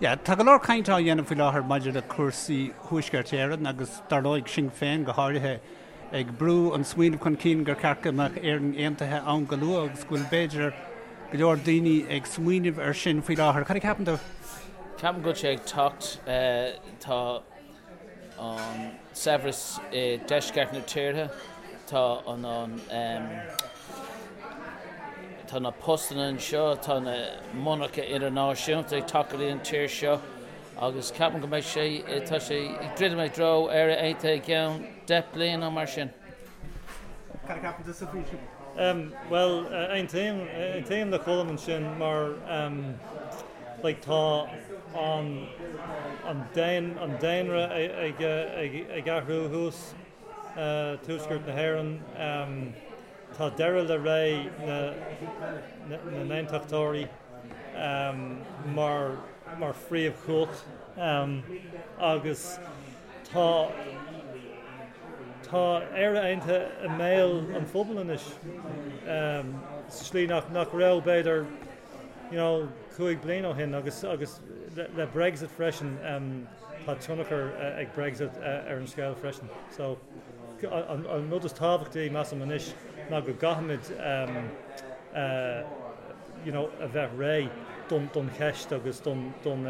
Yeah, tá go leor cainte á dhéanamh faoi láthair maidir le cúrsaí Thuaisceart Éireann agus dar ndóigh Sinn Féin go háirithe ag brú an smaoineamh chun cinn gur ceart go mbeadh Éirinn Aontaithe ann go luath agus go bhfuil b'fhéidir go leor daoine ag smaoineamh ar sin faoi láthair. Cad a cheapann tú? Ceapaim go bhfuil sé ag teacht. Tá an saibhreas i deisceart na tíre, tá an tá na postanna anseo, tá na monarcha idirnáisiúnta ag teacht go dtí an tír seo agus ceapaim go mbeidh sé, tá sé ag druidim i dtreo Éire Aontaithe i gceann 10 bliain nó mar sin. Cad a cheapann tusa faoi sin? Bhuel, aontaím, aontaím le Colm ansin mar like tá an, an an daonra ag, ag, ag athrú thuas, tuaisceart na hÉireann. Tá deireadh le ré na n-aontachtóirí mar mar phríomhchumhacht agus tá tá Éire Aontaithe i mbéal an phobail anois sa slí nach nach raibh b'fhéidir you know 5 bliain ó shin agus agus le Brexit freisin tá tionchar ag Brexit ar an scéal freisin. So An rud is tábhachtaí, measaim anois, ná go gcaithfimid you know a bheith réidh don don cheist agus don don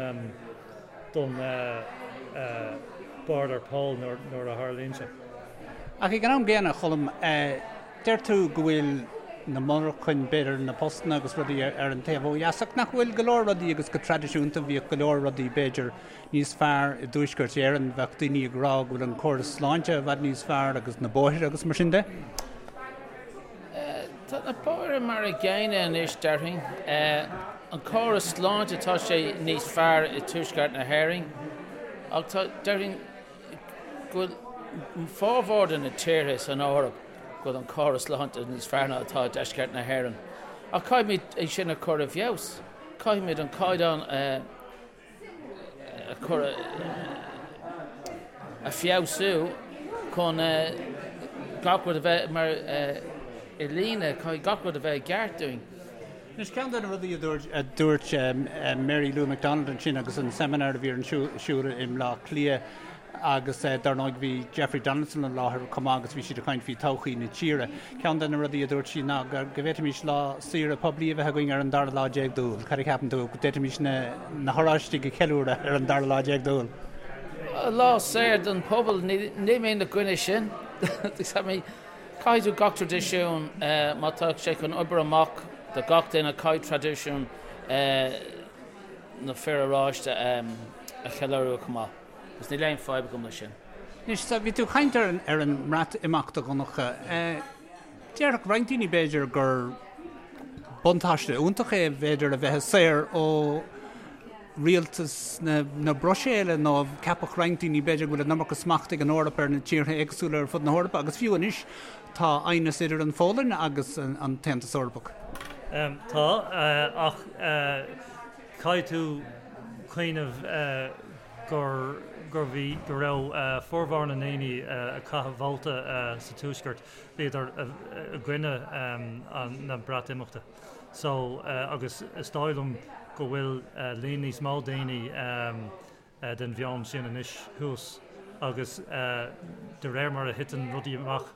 don bord ar poll nuair nuair a tharlaíonn sé. Ach ag an am gcéanna, a Choilm, deir tú go bhfuil na monarchain, b'fhéidir na postanna agus rudaí ar an taobh ó dheas, ach nach bhfuil go leor rudaí agus go traidisiúnta bhíodh go leor rudaí b'fhéidir níos fearr i dTuaisceart Éireann, bheadh daoine ag rá go bhfuil an córas sláinte i bhfad níos fearr agus na bóithre agus mar sin de. Tá na bóithre mar a gcéanna anois, déarfainn. An córas sláinte, tá sé níos fearr i dTuaisceart na hÉireann ach tá, déarfainn go bhfuil formhór de na tíortha san Eoraip go bhfuil an córas sláinte níos fearr ná atá i deisceart na hÉireann. Ach caithfimid é sin a chur i bhfeabhas. Caithfimid an caighdeán a. a chur a feabhsú chun gach rud a bheith mar i líne, caithfidh gach rud a bheith i gceart dúinn. Anois, ceann de na rudaí a dúirt Mary Lou McDonald ansin agus an seimineár a bhí ar siúl i mBleá Cliath agus dar ndóigh bhí Jeffrey Donaldson i láthair chomh maith agus bhí siad ag caint faoi todhchaí na tíre. Ceann de na rudaí a dúirt sí ná go bhféadfaimis lá saoire poiblí a bheith againn ar an dara lá déag d'Iúil. Cad a cheapann tú? Go bhféadfaimis na hOráistigh a cheiliúradh ar an dara lá déag d'Iúil? Lá saor don phobal, níl mé ina gcoinne sin. Caithfidh tú gach traidisiún, má tá sé chun obair amach do gach duine, caithfidh traidisiún na fir oráiste a cheiliúradh chomh maith. Agus níl aon fadhb agam leis sin. Anois, bhí tú ag caint ar an mBreatimeacht, a Dhonncha. Déarfadh roinnt daoine, b'fhéidir, gur buntáiste iontach é, b'fhéidir, a bheith saor ó rialtas na Bruiséile nó ceapfadh roinnt daoine, b'fhéidir, go bhfuil an iomarca smacht ag an Eoraip ar na tíortha éagsúla ar fud na hEorpa agus fiú anois tá aighneas idir an Pholainn agus an tAontas Eorpach. Tá, ach caithfidh tú cuimhneamh gur gur bhí go raibh formhór na ndaoine a chaith vóta sa Tuaisceart, bhíodar i gcoinne na Breatimeachta. So agus is dóigh liom go bhfuil líon níos mó daoine den mheon sin anois thuas agus de réir mar a thiteann rudaí amach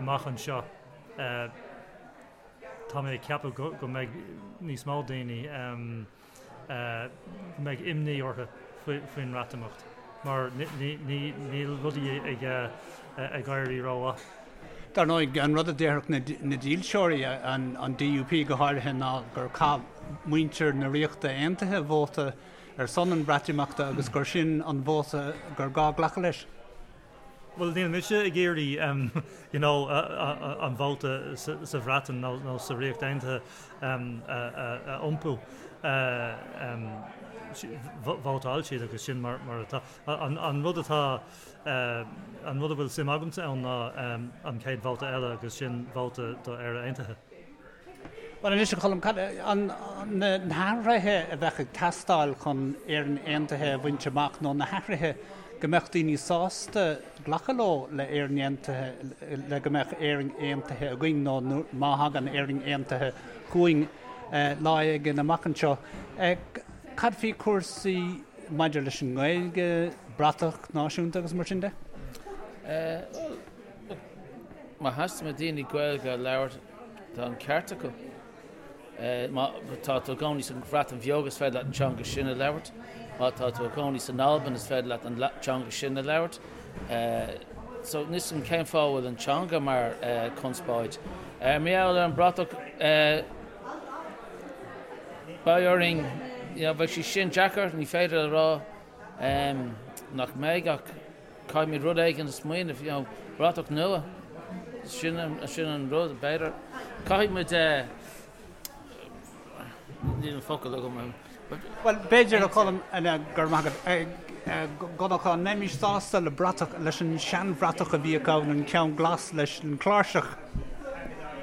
amach anseo, tá mé ag ceapadh go mbeidh níos mó daoine go mbeidh imní orthu faoin mBreatimeacht mar níl rudaí ag éirí rómhaith. Dar ndóigh, an rud a déarfadh na dílseoirí, an DUP go háirithe, ná gur chaith muintir na Ríochta Aontaithe vóta ar son an Bhreatimeachta agus gur sin an vóta gur gá glacadh leis. Bhuel, níl mise ag iarraidh you know an vóta sa Bhreatain nó sa Ríocht Aontaithe a iompú. Vótáil siad agus sin mar atá. An rud atá, an rud a bhfuil suim agamsa ann ná an chéad vóta eile agus sin vóta do Éire Aontaithe. Bhuel anois, a Choilm, cad na hathruithe a bheadh ag teastáil chun Éirinn Aontaithe a bhaint amach nó na hathruithe go mbeadh daoine sásta glacadh leo le Éirinn Aontaithe, le go mbeadh Éirinn Aontaithe againn nó má thagann Éirinn Aontaithe chugainn lá éigin amach anseo. Cad faoi chúrsaí maidir leis an nGaeilge, bratach náisiúnta agus mar sin de? Bhuel, má theastaíonn ó daoine Gaeilge a labhairt, tá an ceart acu. Má tá tú i do chónaí sa Bhreatain Bheag is féidir leat an teanga sin a labhairt. Má tá tú i do chónaí san Albain is féidir leat an teanga sin a labhairt. So níl 'fhios a'm cén fáth a bhfuil an teanga mar conspóid. Mar gheall ar an bratach beidh orainn, you know, beidh sé sin deacair, ní féidir a rá nach mbeidh ach Caithfimid rud éigin a smaoineamh, you know, bratach nua, sin sin an rud, b'fhéidir. Caithfidh muid eh, níl an focal agam. Bhuel, b'fhéidir, a Cholm, go raibh maith agat, Donncha, an mbeimis sásta le bratach, leis an seanbhratach a bhíodh ann, an ceann glas leis an chláirseach?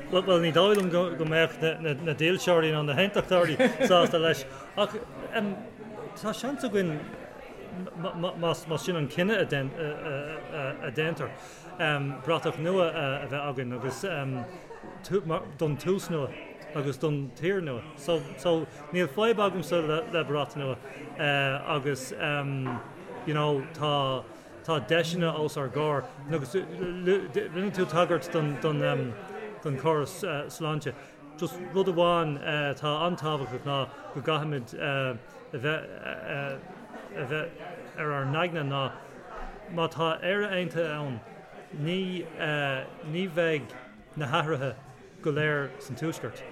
Bhuel, ní dóigh liom go mbeadh na dílseoirí ná na haontachtóirí sásta leis, ach tá seans againn más sin an cinneadh a déantar, bratach nua a bheith againn agus don tús nua agus don tír nua. So níl fadhb agamsa le brat nua agus you know tá tá deiseanna os ár gcomhair agus rinne tú tagairt don don chóras sláinte. Just rud amháin atá an-tábhachtach ná go gcaithfimid a bheith a bheith ar ár n-aigne ná má tá Éire Aontaithe ann, ní ní bheidh na hathruithe go léir san Tuaisceart,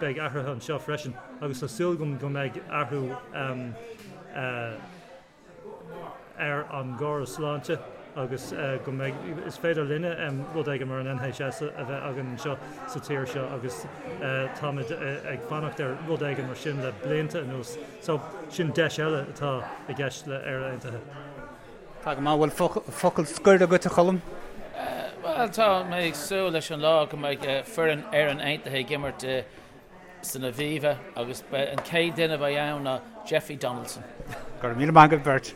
beidh athruithe anseo freisin agus tá súil agam go mbeidh athrú ar an gcóras sláinte agus go mbeidh, is féidir linne rud éigin mar an NHS a bheith againn anseo sa tír seo agus táimid ag fanacht ar rud éigin mar sin le blianta anuas. So, sin deis eile atá i gceist le Éire Aontaithe. Tá go maith. Bhfuil focal scoir agat, a Cholm? Bhuel, tá mé ag súil leis an lá go mbeidh foireann Éireann Aontaithe ag imirt san Aviva agus an chéad duine a bheidh ann ná Jeffrey Donaldson. Go raibh míle maith agat beirt.